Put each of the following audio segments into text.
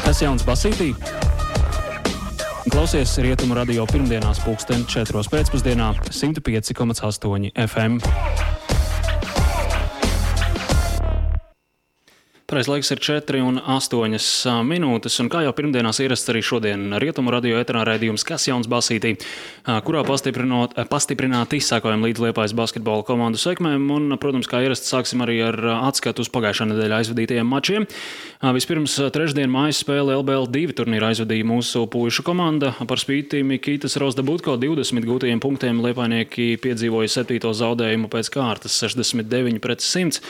Kas jauns basītī? Klausies Rietumu radio pirmdienās 4:00 pēcpusdienā 105,8 FM. Pareiz laiks ir 4:08 minūtes, un kā jau pirmdienās ierasts arī šodien Rietumu radio eterā raidījums Kas jauns basītī, kurā pastiprināti izsākojam līdz Liepājas basketbola komandu sekmēm, un, protams, kā ierasts, sāksim arī ar atskatu uz pagājušā nedēļa aizvadītajiem mačiem. Vispirms trešdien mājas spēle LBL 2 turnīra aizvadīja mūsu puišu komanda. Par spīti Mikitas Rozdabutko 20 gūtajiem punktiem liepainieki piedzīvoja 7. zaudējumu pēc kārtas 69-100.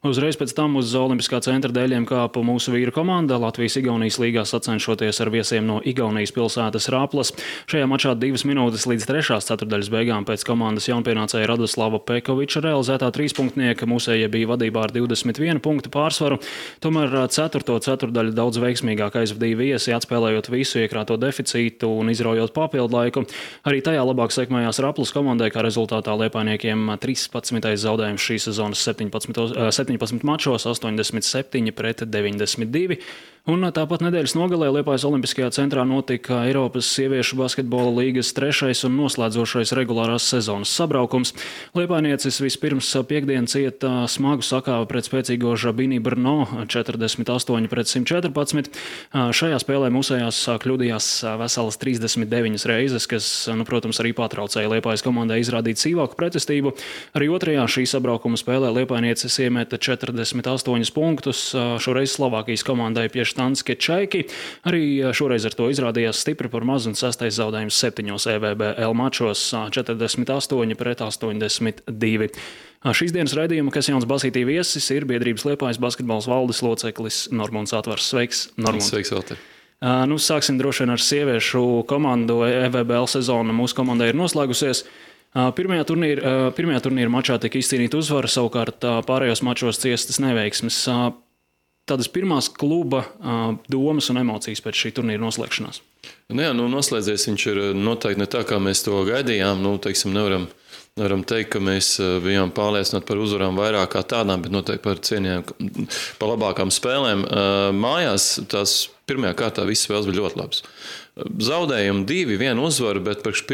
Uzreiz pēc tam uz Olimpiskā centra dēļiem kāpa mūsu vīru komanda Latvijas-Igaunijas līgā sacenšoties ar viesiem no Igaunijas pilsētas Rāplas. Šajā mačā 2 minūtes līdz 3. ceturdaļas beigām pēc komandas jaunpienācēja Radoslava Pekoviča realizētā trīspunktnieka mūsējie bija vadībā ar 21 punktu pārsvaru. Tomēr 4. ceturdaļu daudz veiksmīgāk aizvadīja viesi, atspēlējot visu iekrāto deficītu un izraujot papildu laiku. Arī tajā labāk sekmējās Rāplas komandai, kā rezultātā liepainiekiem 13. zaudējums šīs sezonas 17 mačos, 87-92. Un tāpat nedēļas nogalē Liepājas Olimpiskajā centrā notika Eiropas sieviešu basketbola līgas 3. un noslēdzošais regulārās sezonas sabraukums. Liepainieces vispirms piekdien cieta smagu sakāvi pret spēcīgo Žabini Brno 48-114. Šajā spēlē mūsējās kļūdījās veselas 39 reizes, kas, protams, arī patraucēja Liepājas komandai izrādīt sīvāku pretestību. Arī otrajā šī sabraukuma spēlē Liepainieces iemeta 48 punktus, šoreiz Slovākijas komandai pie Štanske Čaiki. Arī šoreiz ar to izrādījās stipri par maz un 6. zaudējums 7 EVBL mačos 48-82. Šīs dienas raidījuma Kas jauns basītī viesis ir biedrības Liepājas basketbols valdes loceklis Normunds Atvars. Sveiks, Normund. Sveiks, Valter. Sāksim droši vien ar sieviešu komandu. EVBL sezona mūsu komandai ir noslēgusies. Pirmajā turnīra mačā tika izcīnīta uzvara, savukārt pārējos mačos ciestas neveiksmes. Tādas pirmās kluba domas un emocijas pēc šī turnīra noslēgšanās? Noslēdzies viņš ir noteikti ne tā, kā mēs to gaidījām. Nevaram teikt, ka mēs bijām pārliecināti par uzvarām vairāk kā tādām, bet noteikti par cienījām, par labākām spēlēm. Mājās tās pirmajā kārtā visas spēles bija ļoti labas. Zaudējumi 2, 1 uzvara, bet priekš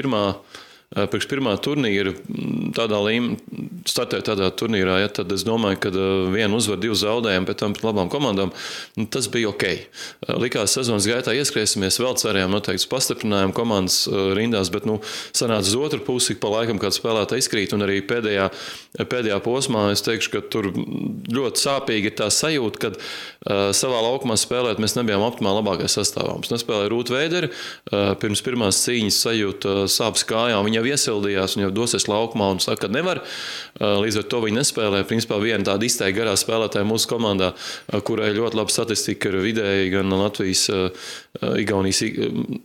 pirmā turnīra startēt tādā turnīrā, tad es domāju, ka 1 uzvar, 2 zaudējumi, pēc tam pret labām komandām, tas bija ok. Likās sezonas gaitā ieskrēsimies, vēl cerējām noteikti pastiprinājām komandas rindās, bet sanāca uz otru pusi, pa laikam kāds spēlētā izkrīt, un arī pēdējā posmā es teikšu, ka tur ļoti sāpīgi ir tā sajūta, kad savā laukumā spēlēt mēs nebijām optimāli labākais sastāvā. Mums nespēlēja Rūta Veidere, pirms pirmās cīņas sajūta sāpes kājām, viņa jau iesildījās un jau dosies laukumā un saka, ka nevar. Līdz ar to viņi nespēlē. Principā viena tāda izteikti garā spēlētāja mūsu komandā, kurai ļoti laba statistika ir vidēji gan Latvijas, Igaunijas,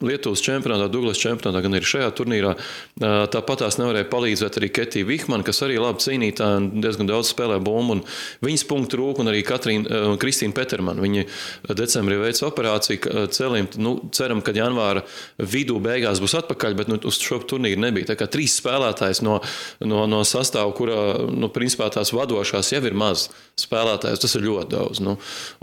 Lietuvas čempionātā, Douglas čempionātā, gan arī šajā turnīrā. Tāpat tās nevarēja palīdzēt arī Ketija Vihmana, kas arī labi cīnītāja un diezgan daudz spēlē bumbu. Un viņas punktu trūka un arī Kristīna Petermana. Viņi decembrī veica operāciju celim. Ceram, ka janvāra vidū beigās būs atpakaļ, bet uz šo turnīru nebija. Tā kā 3 spēlētājs no sastāvu, kurā, principā tās vadošās jau ir maz spēlētājs, tas ir ļoti daudz.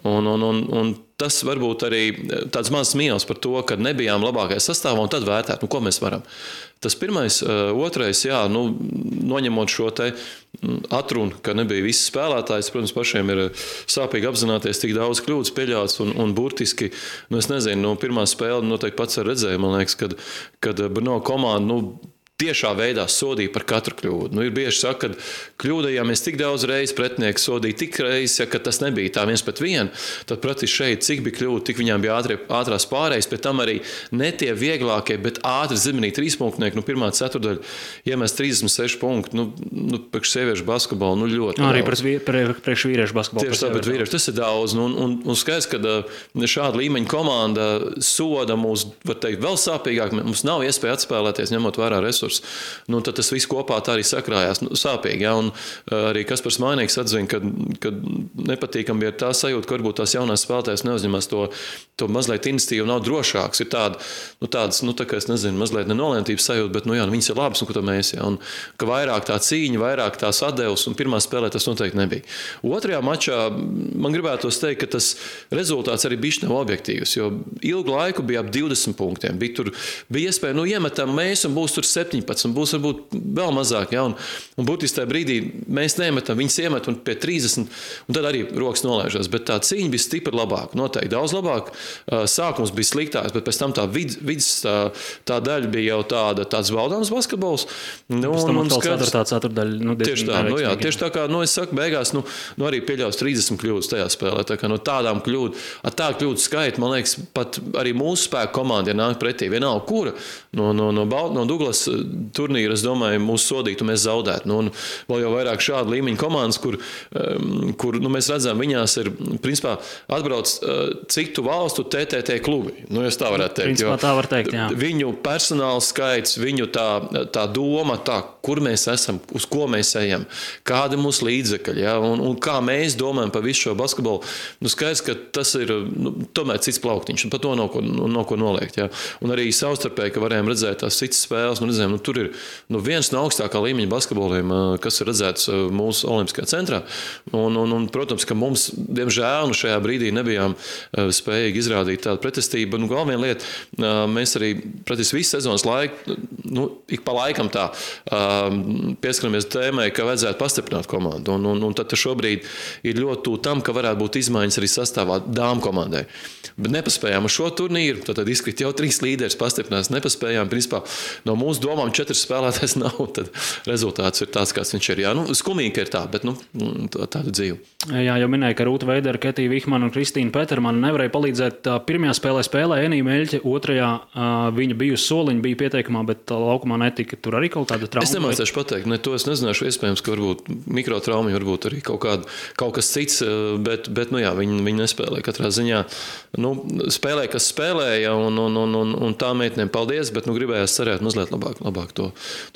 Un tas varbūt arī tāds mazs mīnus par to, ka nebijām labākais sastāvā un tad vērtēt, ko mēs varam. Tas pirmais, otrais, noņemot šo te atrunu, ka nebija visi spēlētājs, protams, pašiem ir sāpīgi apzināties, tik daudz kļūdas pieļauts un burtiski, es nezinu, pirmā spēle noteikti pats ar redzēju, man liekas, kad Brno komanda, tiešā veidā sodīja par katru kļūdu. Ir bieži saka, ka kļūdījāmies tik daudz reizes, pretinieki sodīja tik reizes, ka tas nebija tā 1-1, tad praktiski šeit cik bija kļūda, tik viņām bija ātrās pārējas, pēc tam arī ne tie vieglākie, bet ātri zemenī 3 punktnieki, pirmā ceturdaļa iemest 36 punktu, priekš sieviešu basketbolu, ļoti arī daudz. Priekš vīriešu basketbolu. Tieši tā, bet vīriešu tas ir daudz, un skaidrs, ka šāda līmeņa komanda soda mūs, var teikt, vēl sāpīgāk, mums nav iespēja atspēlēties, ņemot vērā resursus. resursi. Tad tas viss kopā tā arī sakrājās sāpīgi. Ja? Un arī Kaspars Mainīgs atzina, ka nepatīkami ir tā sajūta, ka varbūt tās jaunās spēlētājas neuzņemās to mazliet iniciatīvu, nav drošāks. Ir tādas, tā kā es nezinu, mazliet nenolēmtības sajūta, bet, viņas ir labas, ko mēs, ja? Un ka vairāk tā cīņa, vairāk tās atdevs, un pirmā spēlē tas noteikti nebija. Otrajā mačā man gribētos teikt, ka tas rezultāts arī bišķi nav objektīvs, jo ilgu laiku bija ap 20 punktiem. Bija iespēja, iemetam mēs, un būs tur 17, un būs varbūt vēl mazāk, ja? Un būtiski tajā brīdī mēs neiemetam, viņas iemet un pie 30, un tad arī rokas nolaižās. Bet tā cīņa bija stipri labāka, noteikti daudz labāk. Sākums bija sliktāks, bet pēc tam tā vidas tā daļa bija jau tāds baudāms basketbols. Pēc tam atkal ceturdaļa. Tieši tā, tieši tā kā, es saku, beigās, arī pieļaus 30 kļūdas tajā spēlē. Tā kā no tādām tādu kļūdu skaitu, man liekas, pat arī mūsu spēku komanda, ja nāk pretī, vienalga kura, no Douglas turnīra, es domāju, mūsu sodītu mēs zaudētu. Un vēl jau vairāk šādu līmeņu komandas, kur mēs redzam, viņās ir, principā, atbrauc citu valstu TTT klubi. Es tā varētu teikt. Principā tā var teikt, jā. Viņu personāla skaits, viņu tā doma, kur mēs esam, uz ko mēs ejam, kādi mūsu līdzekļi, ja? Un kā mēs domājam par visu šo basketbolu. Skaidrs, ka tas ir tomēr cits plauktiņš, un par to nav ko noliegt. Ja? Un arī savstarpēji, ka varējām redzēt tās citas spēles, redzējām, tur ir viens no augstākā līmeņa basketboliem, kas ir redzēts mūsu Olimpiskajā centrā. Un, protams, ka mums, diemžēl, šajā brīdī nebijām spējīgi izrādīt tādu pretestību. Vēl viena lieta, mēs arī praktiski visu sezonas laiku, ik pa laikam tā pieskaramies tēmai, ka vajadzētu pastiprināt komandu. Un tad šobrīd ir ļoti tūl tam, ka varētu būt izmaiņas arī sastāvā dāmu komandai. Bet nepaspējām uz šo turnīru, tad izkrit jau 3 līderis pastiprinās. Nepaspējām, principā, no mūsu domām 4 spēlētājs nav, tad rezultāts ir tāds, kāds viņš ir. Jā, skumīgi ir tā, bet tāda dzīve. Jā, jau minēja, ka Rūta Veidera, Ketija Vihmana un Kristīna Petermana nevarēja palīdzēt. Pirmajā spēlē Enija Meļķe, otrajā viņa bija uz soliņa, bija pieteikumā, bet laukumā netika. Tur arī kaut kāda trauma. Es nemācēšu pateikt, to es nezināšu. Iespējams, ka varbūt mikrotraumi, varbūt arī kaut kas cits, bet viņi nespēlēja katrā ziņā. Spēlēja, kas spēlēja, un tā meitenēm paldies, bet gribējās cerēt mazliet labāk to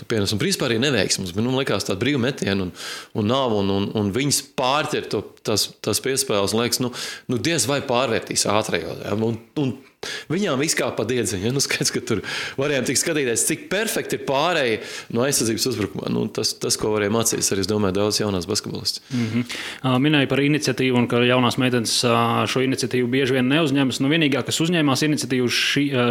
pienes. Un principā arī neveiksmes, bet likās tāda brīva metiena un nav, un viņas pārķer tās piespēles, un liekas, diez vai pārvērtīs ātrajos. Ja? Un viņām viss kā pa diedziņu. Ja? Skaidrs, ka tur varējām tik skatīties, cik perfekti ir pārēja no aizsardzības uzbrukumā. Tas, ko varēja mācīties, arī, es domāju, daudz jaunās basketbolists. Minēja par iniciatīvu, un ka jaunās meitenes šo iniciatīvu bieži vien neuzņemas. Vienīgā, kas uzņēmās iniciatīvu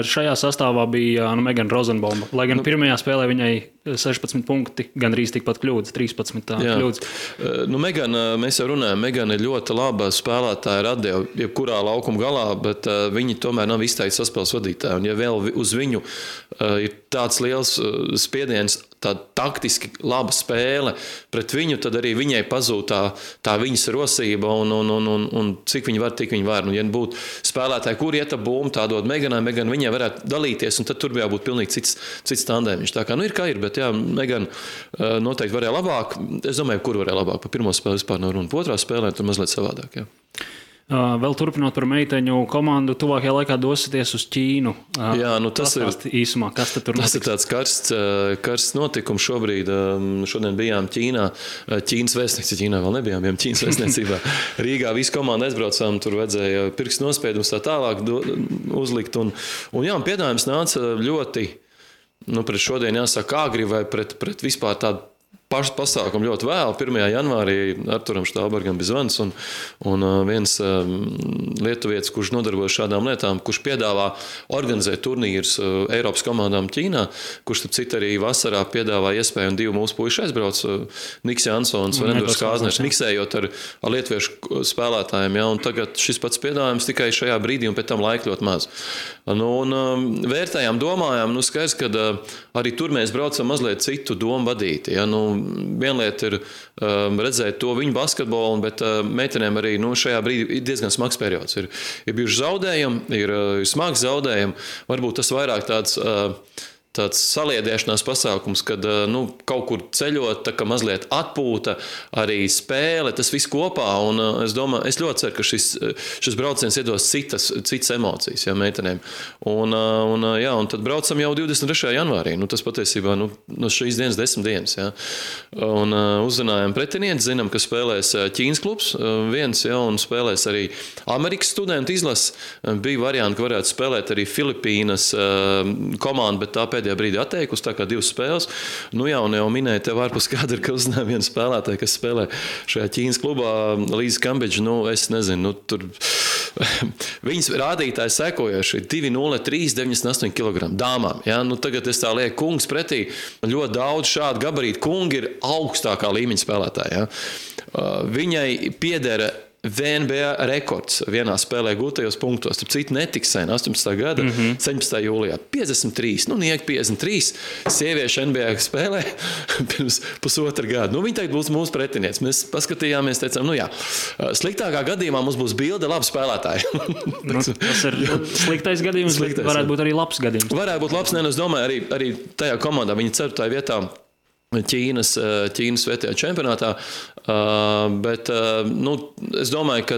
šajā sastāvā, bija Megana Rozenbauma. Lai gan pirmajā spēlē viņai 16 punkti, gandrīz tikpat kļūdas, 13 kļūdas. Megana, mēs jau runājam, Megana ir ļoti laba spēlētāja ar atdevu, jebkurā laukuma galā, bet viņi tomēr nav izteikti saspēles vadītāji. Un ja vēl uz viņu ir tāds liels spiediens, tāda taktiski laba spēle pret viņu, tad arī viņai pazūd tā viņas rosība un cik viņi var, tik viņi var. Ja būtu spēlētāji, kur iet ap bumbu, tā dod Meganai, viņai varētu dalīties, un tad tur bija jābūt pilnīgi cits tandēmiņš. Tā kā ir kā ir, bet jā, Megana noteikti varēja labāk. Es domāju, kur varēja labāk. Pa pirmo spēli vispār nav runa. Pa otrā spēlē tur mazliet savādāk, jā. Vēl turpinot par meiteņu komandu, tuvākajā laikā dosieties uz Ķīnu. Jā, tas ir īsumā, kas tad tur notiks? Tas ir tāds karsts notikums šobrīd. Šodien bijām Ķīnā. Ķīnas vēstniecībā, Ķīnā vēl nebijām, Ķīnas vēstniecībā. Rīgā visu komandu aizbraucām, tur vajadzēja pirkstu nospiedumus tā tālāk uzlikt. Un piedāvājums nāca ļoti, pret šodien jāsaka agri vai pret vispār tādu pašu pasākumu ļoti vēl. 1. janvārī Arturam Štālbergam bija zvans un viens lietuvietis, kurš nodarbojas šādām lietām, kurš piedāvā organizēt turnīrus Eiropas komandām Ķīnā, kurš tad citi arī vasarā piedāvā iespēju, un 2 mūsu puiši aizbrauc, Niks Jansons un Endurs Kāzners, miksējot ar lietuviešu spēlētājiem. Ja, un tagad šis pats piedāvājums tikai šajā brīdī un pēc tam laika ļoti maz. Vērtējām, domājām, skaidrs, ka arī tur mēs braucam mazliet citu domu vadīti. Ja, viena lieta ir redzēt to viņu basketbolu, bet meitenēm arī šajā brīdī ir diezgan smags periods. Ir bijuši zaudējumi, ir smags zaudējumi. Varbūt tas vairāk tāds tāds saliedēšanās pasākums, kad kaut kur ceļot, tā kā mazliet atpūta, arī spēle, tas viss kopā. Un es ļoti ceru, ka šis brauciens iedos citas emocijas, jā, meitenēm. Un tad braucam jau 23. janvārī. Tas patiesībā no šīs dienas 10 dienas. Jā. Un uzzinājām pretinieti, zinām, ka spēlēs Ķīnas klubs viens, jā, un spēlēs arī Amerikas studentu izlases. Bija varianti, ka varētu spēlēt arī Filipīnas komandu, bet tā pēdējā brīdī atteikusi, tā kā 2 spēles. Un jau minēja tev ārpus kadra, ka uzzināja vienu spēlētāju, kas spēlē šajā Ķīnas klubā, Līza Kambidža. Es nezinu, tur viņas rādītāji sekojoši 2,03, 98 kg dāmām. Ja? Tagad es tā lieku kungs pretī. Ļoti daudz šādu gabarītu kungi ir augstākā līmeņa spēlētāji. Ja? Viņai piedera VNBA rekords vienā spēlē gūtajos punktos. Starp citu, netiks sen 18. gada 17. jūlijā. 53, niek 53 sieviešu NBA spēlē pirms pusotra gada. Viņa tagad būs mūsu pretinieks. Mēs paskatījāmies, teicām, sliktākā gadījumā mums būs bilde labi spēlētāji. Tas ir sliktais gadījums, bet varētu būt arī labs gadījums. Varētu būt labs, es domāju, arī tajā komandā viņa 4. vietā Ķīnas vietējā čempionātā, bet es domāju, ka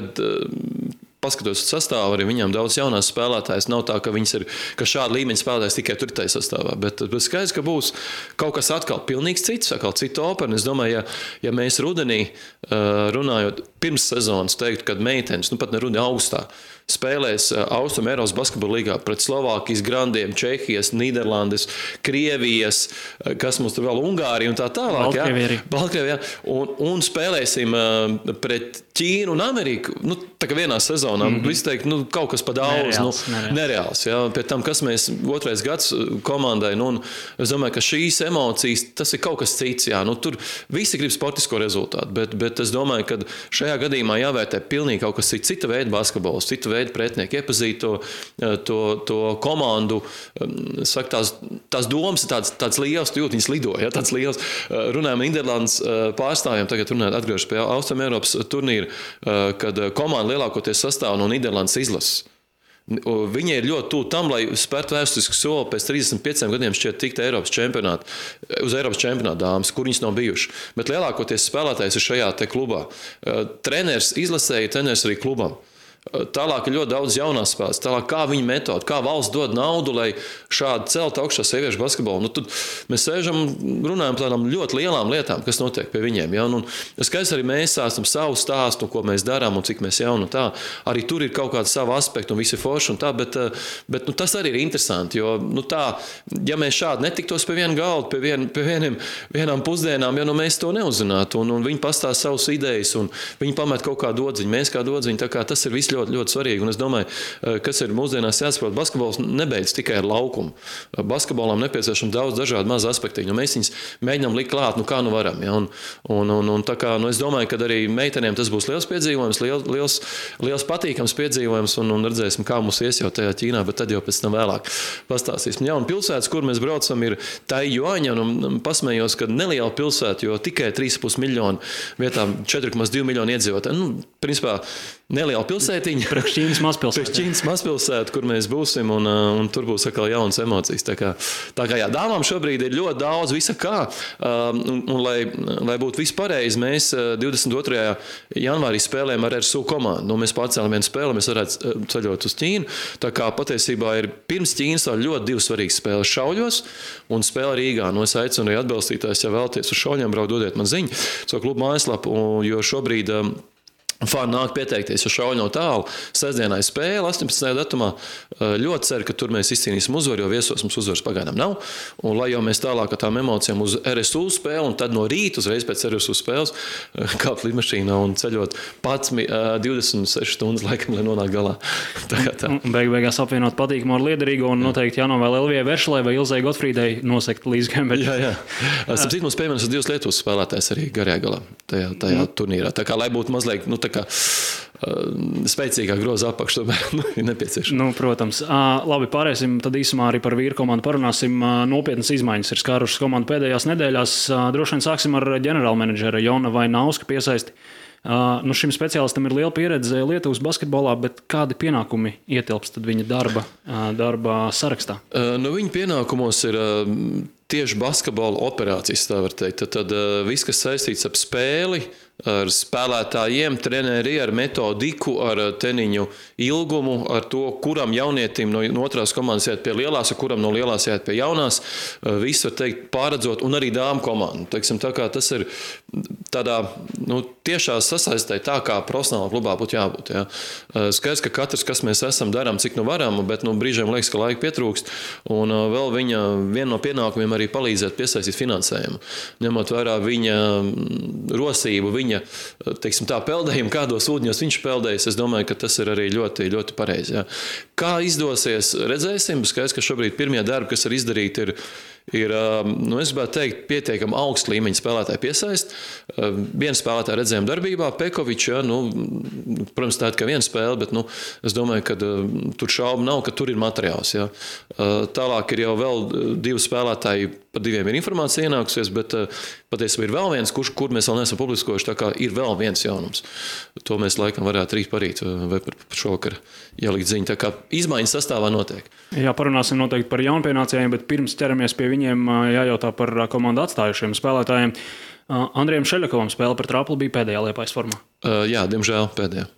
paskatoties uz sastāvu, arī viņām daudz jaunās spēlētājas. Nav tā, ka šāda līmeņa spēlētājs tikai tur tajā sastāvā, bet skaidrs, ka būs kaut kas atkal pilnīgs cits, atkal cita opera. Es domāju, ja mēs rudenī runājot pirms sezonas teiktu, kad meitenes, pat ne rudenī augustā, spēlēs Austrum Eiropas basketbola līgā pret Slovākijas grandiem, Čehijas, Nīderlandes, Krievijas, kas mums tur vēl Ungārija un tā tālāk. Baltkrievija. Un spēlēsim pret Ķīnu un Ameriku. Tā kā vienā sezonā. Visi teikt, kaut kas pa daudz. Nereāls. Jā. Pēc tam, kas mēs 2. gads komandai. Es domāju, ka šīs emocijas, tas ir kaut kas cits. Jā. Tur visi grib sportisko rezultātu. Bet es domāju, ka šajā gadījumā jāvērtē pilnīgi kaut kas cits. Cita veida basketbols, cita veida pretinieki, iepazīt to komandu. Saka, tās domas ir tāds liels, tu jūt, viņas lido. Ja? Tāds liels. Runājam Nīderlandes pārstāvjiem, tagad runājot atgriežas pie Austrum Eiropas turnīra, kad komanda lielākoties sastāv no Nīderlandes izlases. Viņi ir ļoti tuvu tam, lai spērtu vēsturisku soli pēc 35 gadiem šķiet tikt uz Eiropas čempionāta dāmas, kur viņas nav bijuši. Bet lielākoties spēlētājs ir šajā te klubā. Treneris izlasēja, treneris arī klubam. Tālāk ir ļoti daudz jaunās spēles. Tālāk kā viņa metode, kā valsts dod naudu, lai šādi celt augšā sieviešu basketbolu. Tad mēs sēžam, runājam par tādām ļoti lielām lietām, kas notiek pie viņiem. Ja? Skaidrs arī mēs stāstam savu stāstu, ko mēs darām un cik mēs jauni un tā. Arī tur ir kaut kāda sava aspekta un visi forši un tā, bet tas arī ir interesanti, jo tā, ja mēs šādi netiktos pie viena galda, pie vienām pusdienām, ja mēs to neuzzinātu un viņi pastāst savas idejas un viņi pamet kaut kā dodziņu, mēs kā dodziņu, tā kā tas ir viss ļoti, ļoti svarīgi. Un es domāju, kas ir mūsdienās jāsaprot, basketbols nebeidz tikai ar laukumu. Basketbolam nepieciešams daudz dažādu mazu aspektu. Mēs viņus mēģinām likt klāt, kā varam. Ja? Un tā kā, es domāju, ka arī meitenēm tas būs liels piedzīvojums, liels patīkams piedzīvojums un redzēsim, kā mums ies jau tajā Ķīnā, bet tad jau pēc tam vēlāk pastāstīsim. Ja, un pilsētas, kur mēs braucam, ir Taijuaņa, un pasmējos, ka neliela pilsēta, jo tikai 3,5 miljonu vietā 4,2 miljonu iedzīvotāju. Principā neliela pilsētiņa. Priekš Ķīnas mazpilsēta, kur mēs būsim, un tur būs atkal jaunas emocijas. Tā kā jā, dāmām šobrīd ir ļoti daudz visa kā, un lai būtu viss pareizi, mēs 22. janvārī spēlējam ar RSU komandu. Mēs pārcēlam vienu spēli, mēs varētu ceļot uz Ķīnu. Tā kā patiesībā ir pirms Ķīnas vēl ļoti 2 svarīgas spēles Šauļos un spēle Rīgā. Es aicinu arī atbalstītājs, ja vēlaties uz Šauļiem braukt, dodiet man ziņu savu klubu mājaslapu, jo šobrīd fani nāk pieteikties, jo Šauļi nav tālu. Sestdienā ir spēle, 18. datumā. Ļoti ceru, ka tur mēs izcīnīsim uzvaru, jo viesos mums uzvaras pagaidām nav. Un lai jau mēs tālāk ar tām emocijām uz RSU spēli, un tad no rīta uzreiz pēc RSU spēles kāpt lidmašīnā un ceļot 26 stundas laikam, lai nonāk galā. Tā. Beigās apvienot patīkamu ar liederīgo un noteikti jānovēl Elvijai Veršalai vai Ilzai Gotfrīdai nosekt Līza Kambidža. Jā. Starp citu, mums pievienojas 2 Lietuvas spēlētājs arī garajā galā tajā turnīrā. Tā kā, lai būtu mazliet, spēcīgāk groza apakš, tomēr ir nepieciešams. Protams. Labi, pārēsim tad īsumā arī par vīru komandu parunāsim. Nopietnas izmaiņas ir skārušas komandu pēdējās nedēļās. Droši vien sāksim ar ģenerālmenedžera Jona Vainauska piesaisti. Nu, šim speciālistam ir liela pieredze Lietuvas basketbolā, bet kādi pienākumi ietilpst viņa darba sarakstā? Nu, viņa pienākumos ir tieši basketbola operācijas, tā var teikt. Tad viss, kas saistīts ar spēli, ar spēlētājiem, treneri, ar metodiku, ar teniņu ilgumu, ar to, kuram jaunietim no otrās komandas iet pie lielās, ar kuram no lielās iet pie jaunās. Viss, var teikt, pārredzot, un arī dāmu komandu. Teiksim, tā kā tas ir tādā tiešā sasaistē, tā kā profesionālā klubā būtu jābūt. Ja. Skaidrs, ka katrs, kas mēs esam, darām, cik varam, bet brīžiem liekas, ka laika pietrūkst. Un vēl viena no pienākumiem arī palīdzēt piesaistīt finansējumu. Ņemot vērā viņa rosību, viņa, teiksim tā, peldējumu, kādos ūdņos viņš peldējas, es domāju, ka tas ir arī ļoti, ļoti pareizi. Ja. Kā izdosies, redzēsim. Skaidrs, ka šobrīd pirmie darbi, kas ir izdarīti, ir es gribētu teikt, pietiekami augsta līmeņa spēlētāju piesaist. Vienu spēlētāju redzējām darbībā, Pekovičs, ja, protams, tā ir kā viena spēle, bet es domāju, ka tur šaubu nav, ka tur ir materiāls. Ja. Tālāk ir jau vēl 2 spēlētāji, par 2 ir informācija ienākusies, bet patiesībā ir vēl viens, kur mēs vēl neesam publiskojuši, tā kā ir vēl viens jaunums. To mēs laikam varētu rīt parīt vai par šovakar ielikt ziņu. Tā kā izmaiņas sastāvā notiek. Jā, parunāsim noteikti par jaunpienācējiem, bet pirms ķeramies pie viņiem, jājautā par komandu atstājušiem spēlētājiem. Andrijam Šeļakovam spēle par Trapli bija pēdējā Liepājas formā. Jā, diemžēl pēdējā.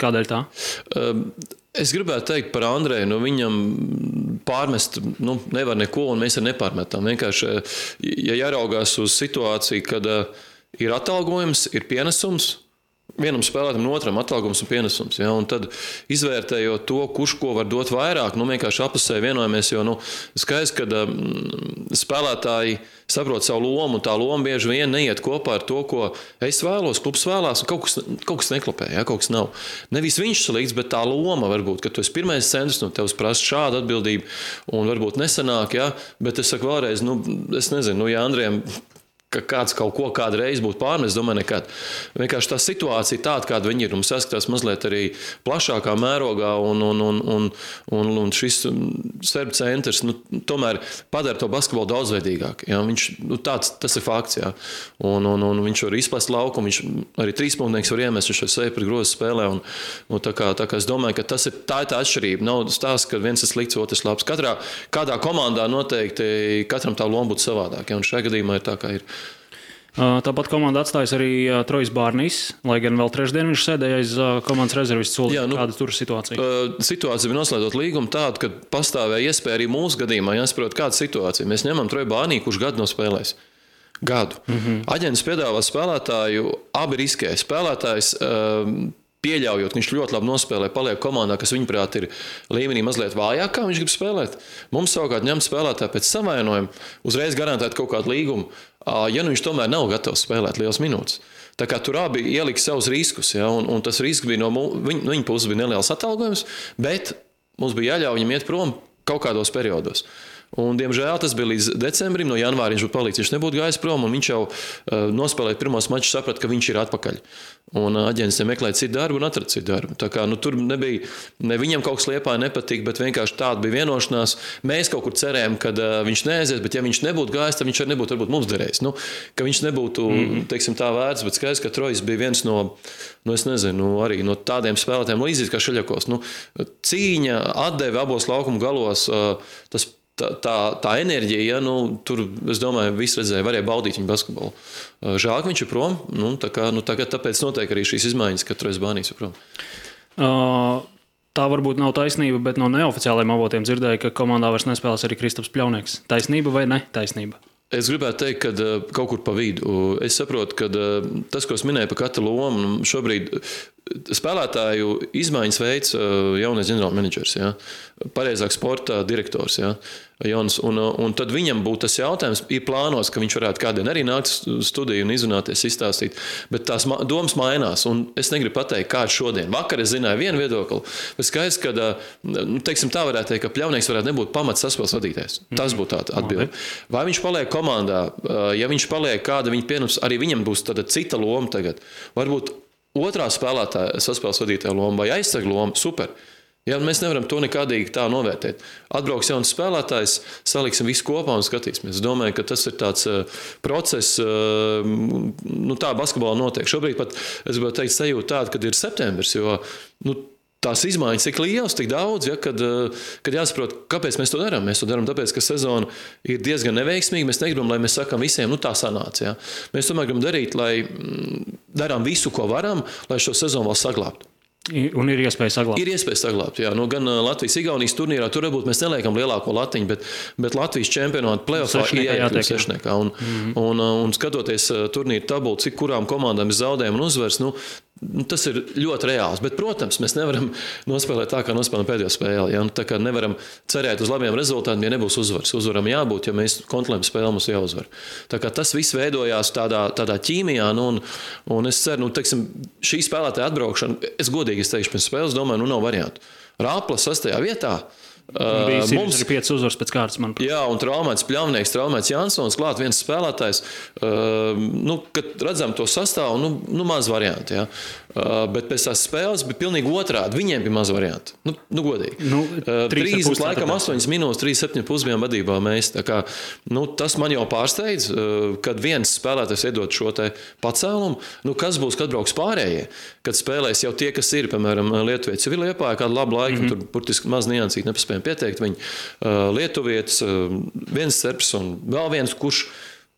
Kādēļ tā? Es gribētu teikt par Andreju, viņam pārmest nevar neko, un mēs arī nepārmetam. Vienkārši, ja jāraugās uz situāciju, kad ir atalgojums, ir pienesums, vienam spēlētam un otram atalgojums un pienesums. Ja? Un tad izvērtējot to, kurš ko var dot vairāk, vienkārši apusēji vienojamies, jo skaidrs, ka spēlētāji saprot savu lomu, un tā loma bieži vien neiet kopā ar to, ko es vēlos, klubs vēlās, un kaut kas neklapē, ja? Kaut kas nav. Nevis viņš salīdz, bet tā loma varbūt, ka tu esi pirmais centrs, tevs prasa šādu atbildību, un varbūt nesanāk, ja? Bet es saku vēlreiz, es nezinu, ja Andrejam ka kāds kaut ko kādreiz būtu pārmest, domāju, nekad. Vienkārši tā situācija tāda, kāda viņi ir, mums saskatās mazliet arī plašākā mērogā, un šis serbu centrs tomēr padara to basketbolu daudzveidīgāk. Ja? Viņš, tas ir fakts, ja? un viņš var izplest laukumu, viņš arī trīspunktnieks var iemest, viņš ar sevi par grozu spēlē, un tā kā es domāju, ka tā ir tā atšķirība. Nav stāsts, ka viens ir slikts, otrs labs. Kādā komandā noteikti katram tā loma būtu savādāk, ja? Un šajā gadījumā ir tā, kā ir. Tāpat komanda atstājas arī Trojs Bārnīs, lai gan vēl trešdien viņš sēdēja aiz komandas rezervistu soli. Kāda tur situācija? Situācija bija noslēdzot līgumu tāda, ka pastāvēja iespēja arī mūsu gadījumā jāsaprot, kāda situācija. Mēs ņemam Troju Bārnī, kurš gadu nospēlēs. Gadu. Aģents piedāvā spēlētāju, abi riskē. Spēlētājs pieļaujot, ka viņš ļoti labi nospēlē, paliek komandā, kas viņuprāt ir līmenī mazliet vājāk, kā viņš grib spēlēt. Mums savukārt ņemt spēlētāju pēc savainojuma, uzreiz garantēt kaut kādu līgumu, ja viņš tomēr nav gatavs spēlēt liels minūtes. Tā kā tur abi ielika savus riskus, ja, un tas risks bija no viņa puses bija neliels atalgojums, bet mums bija jāļauj viņam iet prom kaut kādos periodos. Un, diemžēl, tas bija līdz decembrim, no janvāra viņš būtu palicis, viņš nebūtu gājis prom, un viņš jau nospēlēt pirmos mačus, saprata, ka viņš ir atpakaļ. Un aģents meklēja citu darbu un atrada citu darbu. Tā kā tur nebija, ne viņam kaut kas Liepāja nepatika, bet vienkārši tāda bija vienošanās. Mēs kaut kur cerējām, ka viņš neaizies, bet ja viņš nebūtu gājis, tad viņš arī nebūtu varbūt mums derējis. Ka viņš nebūtu, teiksim, tā vērts, bet skaidrs, ka Trojs bija viens no es nezinu, arī no tādiem spēlētājiem līdzīgs kā Šeļakovs. Cīņa, atdeve abos laukumu galos, tā enerģija, ja, tur, es domāju, visi redzēja, varēja baudīt viņu basketbolu. Žēl, ka viņš ir prom, tāpēc notiek arī šīs izmaiņas, ka Trojs Bārnīs ir prom. Tā varbūt nav taisnība, bet no neoficiālajiem avotiem dzirdēju, ka komandā vairs nespēlēs arī Kristaps Pļaunieks. Taisnība vai ne taisnība? Es gribētu teikt, ka kaut kur pa vidu. Es saprotu, ka tas, ko es minēju par katru lomu, šobrīd spēlētāju izmaiņas veids jaunais ģenerālmenedžers, ja? Pareizāk sporta direktors. Ja? Jauns, un tad viņam būtu tas jautājums, ir plānos, ka viņš varētu kādien arī nākt studiju un izrunāties, izstāstīt, bet tās domas mainās, un es negribu pateikt, kāds šodien. Vakar es zināju vienu viedokli, bet skaidrs, ka, teiksim, tā varētu teikt, ka Pļaunieks varētu nebūt pamats saspēles vadītājs. Tas būtu tāda atbilde. Vai viņš paliek komandā, ja viņš paliek kāda viņa pieņems, arī viņam būs tāda cita loma tagad. Varbūt otrā spēlētāja saspēles vadītāja loma vai aizsarga loma, super. Ja, mēs nevaram to nekādīgi tā novērtēt. Atbrauks jauns spēlētājs, saliksim visu kopā un skatīsimies. Es domāju, ka tas ir tāds process, tā basketbolā notiek. Šobrīd pat, es gribētu teikt, sajūta tāda, kad ir septembris, jo tās izmaiņas tik lielas, tik daudz, ja, kad jāsaprot, kāpēc mēs to darām. Mēs to darām tāpēc, ka sezona ir diezgan neveiksmīga. Mēs negribam, lai mēs sakam visiem, tā sanāca. Ja. Mēs tomēr gribam darīt, lai darām visu, ko varam, lai šo sezonu vēl saglābtu. Un ir iespēja saglabāt. Ir iespēja saglabāt, jā. Gan Latvijas-Igaunijas turnīrā, tur varbūt mēs neliekam lielāko latiņu, bet Latvijas čempionāta play-offā ir jāiekļūt sešniekā. Un skatoties turnīru tabulu, cik kurām komandām ir zaudējumi un uzvars, tas ir ļoti reāls. Bet, protams, mēs nevaram nospēlēt tā, kā nospēlējam pēdējo spēli. Ja? Tā kā nevaram cerēt uz labiem rezultātiem, ja nebūs uzvars. Uzvaram jābūt, ja mēs kontrolējam spēli, mums jāuzvar. Tā kā tas viss veidojās tādā ķīmijā, un es ceru, teiksim, šī spēlētāja atbraukšana, es godīgi teikšu, pēc spēles domāju, nav variantu. Rāpla 6. vietā. Mums ir 5 uzvaras pēc kārtas, manuprāt. Jā, un traumēts Pļavnieks, traumēts Jansons, klāt viens spēlētājs. Kad redzam to sastāvu, maz varianti. Ja. Bet pēc tās spēles bija pilnīgi otrādi. Viņiem bija maz varianti. Godīgi. 30 laikam 8 minūtes, 3,7 bijām vadībā mēs. Tā kā, tas man jau pārsteidz, kad viens spēlētājs iedod šo te pacēlumu. Kas būs, kad brauks pārējie? Kad spēlēs jau tie, kas ir, piemēram, Lietuvietis jau ir Liepājā kādu labu laiku, tur burtiski maz niansīgi nepaspējam pieteikt. Viņi Lietuvietis, viens serbs un vēl viens,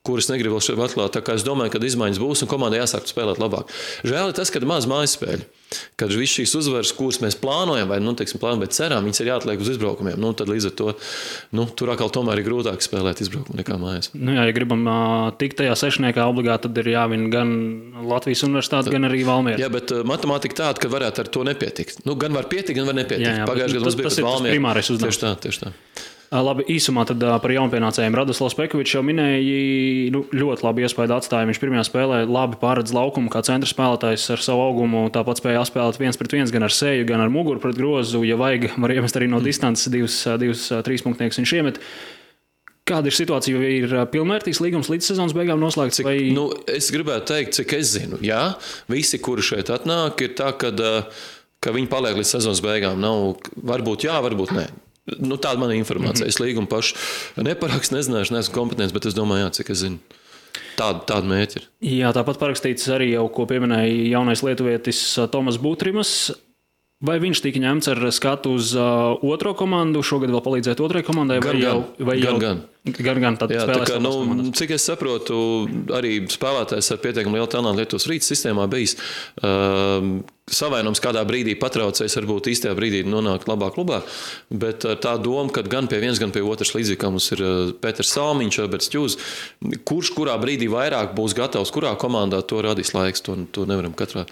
kurus negribu vēl šeit atklāt. Tā kā es domāju, ka izmaiņas būs un komandai jāsāk spēlēt labāk. Žēl ir tas, ka maz mājspēļu. Kad viss šīs uzvaras, kuras mēs plānojam, vai bet ceram, viņas ir jāatliek uz izbraukumiem. Tad līdz ar to tur atkal tomēr ir grūtāk spēlēt izbraukumu nekā mājās. Ja gribam tikt tajā sešniekā obligāti, tad ir jāvin gan Latvijas universitāte, gan arī Valmiera. Jā, bet matemātika tāda, ka varētu ar to nepietikt. Gan var pietikt, gan var nepietikt. Pagājušajā gadā mums bija tas Valmiera. Primārais uzdevums. Tieši tā. Labi, īsumā tad par jaunpienācējiem Radoslavs Pekovičs jau minēja, ļoti labi iespēju atstāja. Viņš pirmajā spēlē labi pārredz laukumu kā centra spēlētājs ar savu augumu. Tāpat spēja spēlēt 1-1 gan ar seju, gan ar muguru pret grozu. Ja vajag, var iemest arī no distances divus trīspunktniekus viņš iemet. Kāda ir situācija, vai ir pilnvērtīgs līgums līdz sezonas beigām noslēgts? Es gribētu teikt, cik es zinu. Jā, visi, kuri šeit atnāk, ir tā, ka viņi paliek līdz sezonas beigām. Nav, varbūt jā, varbūt nē. Tāda man informācija. Es līgumu pašu neparakstu, nezināšu, neesmu kompetents, bet es domāju, jā, cik es zinu. Tāda mērķi ir. Jā, tāpat parakstīts arī jau, ko pieminēja jaunais lietuvietis Tomas Butrimas. Vai viņš tika ņemts ar skatu uz otro komandu, šogad vēl palīdzēt otrai komandai? Gan. Jā, tā kā, cik es saprotu, arī spēlētājs ar pietiekami lielu talantu Lietuvas Rītas sistēmā bijis savainojums kādā brīdī patraucējis, varbūt īstajā brīdī nonākt labā klubā, bet tā doma, ka gan pie viens, gan pie otras līdzīgi, kā mums ir Pēters Salmiņš, Alberts Ķūz, kurā brīdī vairāk būs gatavs, kurā komandā to radīs laiks, to nevaram katrā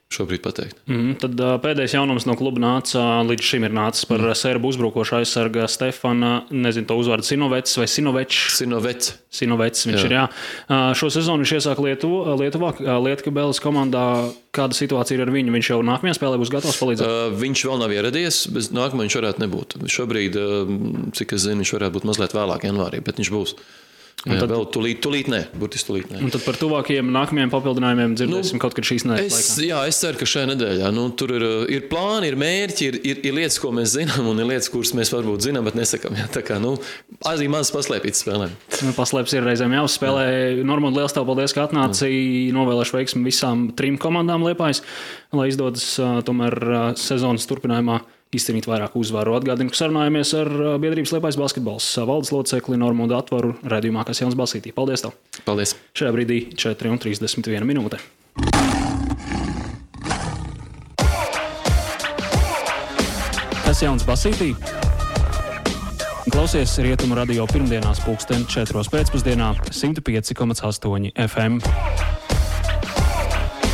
šobrīd pateikt. Tad pēdējais jaunums no kluba līdz šim ir nācis par serbu uzbrukošu aizsarga Stefana, nezinu to uzvārdu, Sinovets vai Sinovečs? Sinovets viņš ir, jā. Šo sezonu viņš iesāk Lietuvā, Lietkabeles komandā. Kāda situācija ir ar viņu? Viņš jau nākamajā spēlē būs gatavs palīdzēt? Viņš vēl nav ieradies, bet nākamā viņš varētu nebūt. Šobrīd, cik es zinu, viņš varētu būt mazliet vēlāk janvārī, bet viņš būs. Jā, tad, vēl tūlīt nē, burtiski tūlīt nē. Un tad par tuvākajiem nākamajiem papildinājumiem dzirdēsim kaut kad šīs nedēļas laikā. Jā, es ceru, ka šajā nedēļā. Tur ir plāni, ir mērķi, ir lietas, ko mēs zinām, un ir lietas, kuras mēs varbūt zinām, bet nesakām. Jā, tā kā, arī maz paslēpītas spēlēm. Paslēpts ir reizēm jāuzspēlē. Normand, liels tev paldies, ka atnāci. Novēlēšu veiksmi visām 3 komandām Liepājas, lai izdodas tomēr sezonas turpinājumā izcīnīt vairāk uzvaru. Atgādinu, ka sarunājamies ar biedrības Liepājas basketbols valdes locekli Normundu Atvaru raidījumā Kasjauns Basītī. Paldies tev! Paldies! Šajā brīdī 4:31 minūte. Kasjauns Basītī. Klausies Rietumu radio pirmdienās 4:00 pēcpusdienā 105,8 FM.